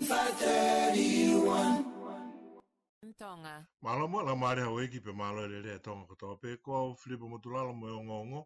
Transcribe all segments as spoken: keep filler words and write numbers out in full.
five thirty-one. Mālō mo e laumālie ʻa houʻeiki pea mālō e lelei ʻa Tonga kotoa pē. Ko au Filipa Motulalo mo e ongoongo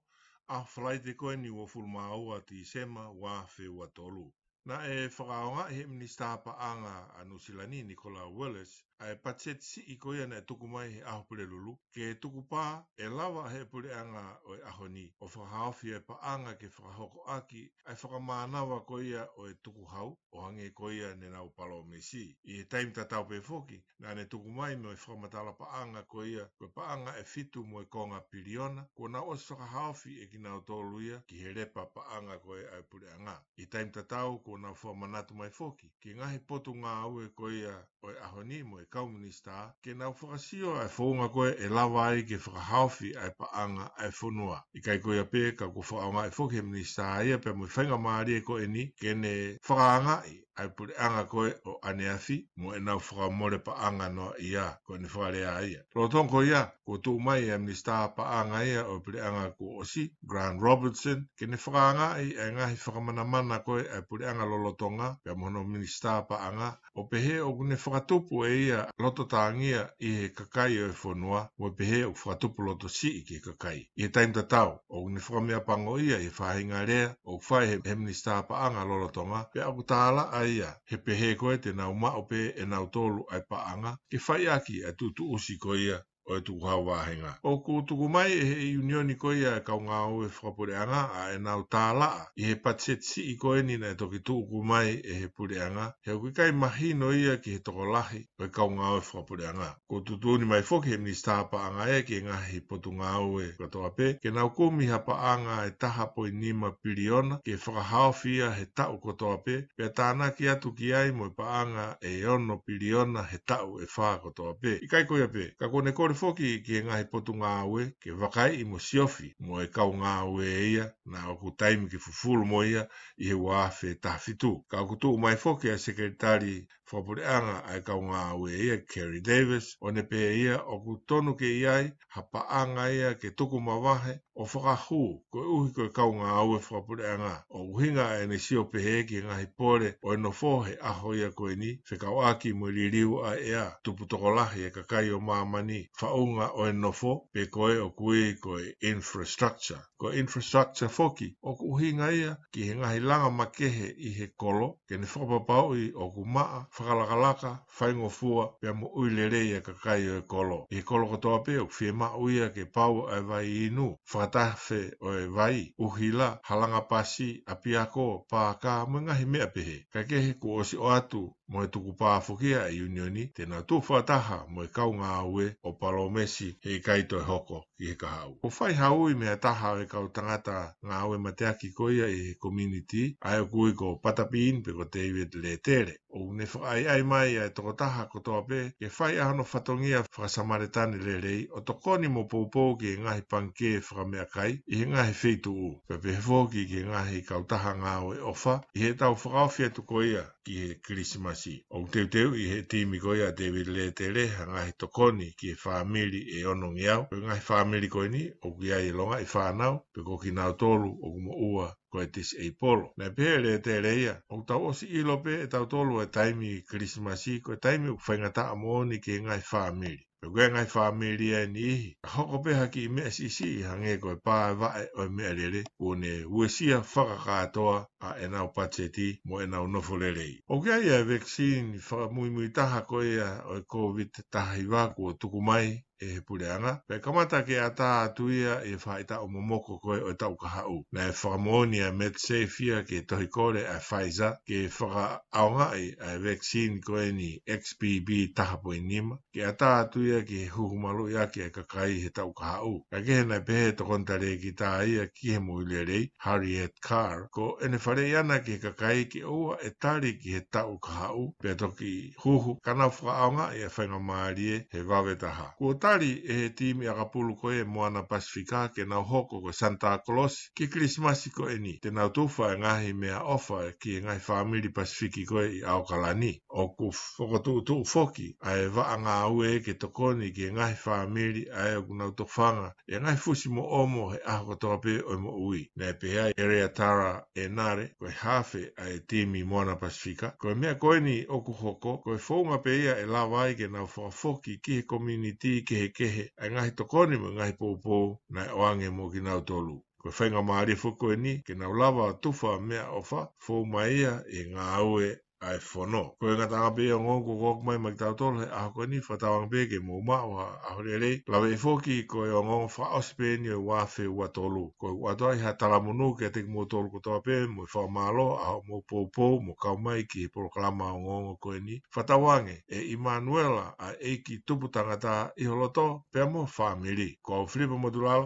ʻa e Falaite ko eni uofulu mā ua Tīsema ua afe ua tolu. Naʻe fakaʻaongaʻi ʻe he Minisitā Paʻanga ʻa Nuʻusila ni, Nicola Willis, ʻa e patiseti siʻi ko ia naʻe tuku mai he ʻaho Pulelulu, ke tukupā ʻe lava ʻe he puleʻanga ʻo e ʻaho ni ʻo fakahaofi ʻa e paʻanga ke fakahoko ʻaki ʻa e fakamānava ko ia ʻo e tukuhau, ʻo hangē ko ia ne nau palōmesi. ʻI he taimi tatau pē foki, naʻa ne tuku mai mo e fakamatala paʻanga ko ia, ko e paʻanga ʻe fitu mo e konga piliona, kuo nau ʻosi fakahaofi ʻe kinautolu ia ki he lepa paʻanga ko ia ʻa e puleʻanga. ʻI he taimi tatau, kuo nau fakamanatu mai foki ki he ngaahi potungāue ko ia ʻo e ʻaho ni mo e kau minisitā, ke nau fakasio ʻa e founga ko ē ʻe lava ai ke fakahaofi ʻa e paʻanga ʻa e fonua. ʻIkai ko ia pē, ka kuo fakaʻaongaʻi foki ʻe he minisitā ia pea mo e faingamālie ko eni ke ne fakaangaʻi ʻa e puleʻanga ko ē ʻo ʻaneafi mo ʻenau fakamole paʻanga noaʻia, ko ʻene fakalea ia. Lolotonga ko ia, kuo tuʻu mai ʻa e Minisitā Paʻanga ia ʻo e puleʻanga kuo ʻosi, Grant Robertson, ke ne fakaangaʻi ʻa e ngaahi fakamanamana ko ē ʻa e puleʻanga lolotonga pea mo hono Minisitā Paʻanga, ʻo pehē ʻoku ne fakatupu ʻe ia loto tāngia ʻi he kakai ʻo e fonua, mo pehē ʻoku fakatupu loto siʻi ki he kakai. ʻI he taimi tatau, ʻoku ne fakameapangoʻia ʻi he faʻahinga lea ʻoku fai ʻe he, he Minisitā Paʻanga lolotonga, pea ʻoku tālaʻa ia he pehē ko ē te nau maʻu pē ʻe nautolu ʻa e paʻanga ke fai ʻaki ʻa e tuʻutuʻusi ko ia ʻo e tukuhau vāhenga. ʻOku tuku mai ʻe he ʻiunioni ko ia ʻa e kau ngāue fakapuleʻanga ʻa ʻenau tālaʻa ʻi he patiseti siʻi ko eni naʻe toki tuku mai ʻe he puleʻanga, he ʻoku ʻikai mahino ia ki he tokolahi ʻo e kau ngāue fakapuleʻanga. Kuo tuʻutuʻuni mai foki ʻe he Minisitā Paʻanga ia ki he ngaahi potungāue kotoa pē, ke nau kumi ha paʻanga ʻe taha poini nima piliona ke fakahaofi ia he taʻu kotoa pē, pea tānaki atu ki ai mo e paʻanga ʻe ono piliona he taʻu ʻe fā kotoa pē. ʻIkai ko ia pē, ka kuo ne kole foki ki he ngaahi potungāue ke vakaiʻi mo siofi mo e kau ngāue ia naʻa ʻoku taimi ke fufulu mo ia ʻi he ua afe taha fitu. Ka ʻoku tuʻu mai foki ʻa e Sekelitali Fakapuleʻanga ʻa e kau ngāue ia, Kerry Davis, ʻo ne pehē ia ʻoku tonu ke ʻi ai ha paʻanga ia ke tuku mavahe ʻo fakahū, koeʻuhi ko e kau ngāue fakapuleʻanga. ʻOku ʻuhinga ʻa ʻene sio pehē ki he ngaahi pole ʻo e nofo he ʻaho ia ko eni, fekauʻaki mo e liliu ʻa e ʻea, tupu tokolahi e kakai ʻo māmani, faʻunga ʻo e nofo, pe ko e ʻoku ui ko e infrastructure. Ko e infrastructure foki, ʻoku ʻuhinga ia ki he ngaahi langa makehe ʻi he kolo, ke ne fakapapauʻi ʻoku maʻa, fakalakalaka, faingofua, pea mo ʻui lelei e kakai ʻo e kolo. ʻI he kolo kotoa pē ʻoku fiemaʻu ia ke pau ʻa e vai inu, fakatafe ʻo e vai, ʻuhila, halanga pasi, ʻapiako, pākā, mo e ngaahi meʻa pehē. Kae kehe kuo ʻosi ʻoatu mo e tukupā foki ʻa e ʻiunioni, te nau tuʻu fakataha mo e kau ngāue ʻo palōmesi he ʻikai toe hoko ki he kahaʻu. Kuo fai ha ui mei ha taha ʻo e kau tangata ngāue mateaki ko ia ʻi he community, ʻa ia ʻoku ui ko Patapiin pe ko David Lētele. ʻOku ne fakaʻaiʻai mai ʻa e tokotaha kotoa pē ke fai ʻa hono fatongia fakasamaletane lelei ʻo tokoni mo poupou ki he ngaahi pangikē fakameʻakai ʻi he ngaahi feituʻu. Pea pehē foki ki he ngaahi kautaha ngāue ʻofa ʻi heʻetau fakaofi atu ko ia ki he Kilisimasi. ʻOku teuteuʻi ʻe he timi ko ia ʻa David Lētele ha ngaahi tokoni ki he fāmili ʻe onongeau. Ko e ngaahi fāmili ko eni ʻoku ʻi ai e longaʻi fānau, pe ko kinautolu ʻoku moʻua ko e disabled. Naʻe pehē ʻe Lētele ia, ʻoku tau ʻosi ʻilo pē ʻe tautolu e taimi Kilisimasi ko e taimi ʻoku faingataʻa moʻoni ki he ngaahi fāmili. Pea ko e ngaahi fāmili ʻa e niʻihi, ka hoko pē ha kiʻi meʻa siʻisiʻi hangē ko e pā e vaʻe ʻo e meʻalele, kuo ne uesia fakakātoa ʻa ʻenau patiseti mo ʻenau nofo lelei. ʻOku ʻi ai ʻa e vaccine fakamuimui taha ko ia ʻo e COVID taha hiva kuo tuku mai ʻe he puleʻanga, pea kamata ke ʻatā atu ia ʻi he faʻahitaʻu momoko ko ē ʻo e taʻu kahaʻu. Naʻe fakamoʻoni ʻa e MedSafe ia ke tohi kole ʻa e Pfizer ke fakaʻaongaʻi ʻa e vaccine ko eni X B B taha poini nima, ke ʻatā atu ia ki he huhu maluʻi ʻaki e kakai he taʻu kahaʻu. Kae kehe naʻe pehē ʻe he tokoni talēkita ia ki he moʻui lelei, Harriet Carr, ko ʻene faleʻi ʻana ki he kakai ke ʻoua ʻe tali ki he taʻu kahaʻu, pea toki huhu ka nau fakaʻaongaʻi ʻa e faingamālie he vave taha. Kuo tali ʻe he timi ʻakapulu ko ē Moana Pasifika ke nau hoko ko e Santa Claus ki he Kilisimasi ko eni. Te nau tufa e ngaahi meʻaʻofa ki he ngaahi fāmili Pasifiki ko ē ʻi ʻAokalani. ʻOku fokotuʻutuʻu foki ʻa e vaʻa ngāue ke tokoni ki he ngaahi fāmili ʻa ē ʻoku nau tofanga ʻi he ngaahi fusi mo ʻomo he ʻaho kotoa pē ʻo e moʻui. Naʻe pehē ʻe Eleatara ʻEnale, ko e hafe ʻa e timi Moana Pasifika, ko e meʻa ko eni ʻoku hoko, ko e founga pē ia ʻe lava ai ke nau fakafoki ki he komiunitī kehekehe ʻa e ngaahi tokoni mo e ngaahi poupou naʻe ʻoange mo kinautolu. Ko e faingamālie foki ko eni ke nau lava tufa meʻaʻofa, fou mai ia ʻi he ngāue ʻa e fono. Ko e ngataʻanga pē ia ʻo e ongoongo kuo ʻoatu mai maʻa kitautolu he ʻaho ko eni, fakatauange pē ke mou maʻu ha ʻaho lelei. Lave foki ko e ongoongo fakaʻosi pē eni ʻo e ua afe ua tolu. Ko e ʻoatu ai ha talamonū kiate kimoutolu kotoa pē mo e fakamālō ʻa hoʻomou poupou mo kau mai ki he polokalama ongoongo ko eni. Fakatauange ʻe ʻImanuela ʻa e ʻEiki Tupu Tangata ʻi ho loto pea mo e fāmili. Ko au Filipa Motulala.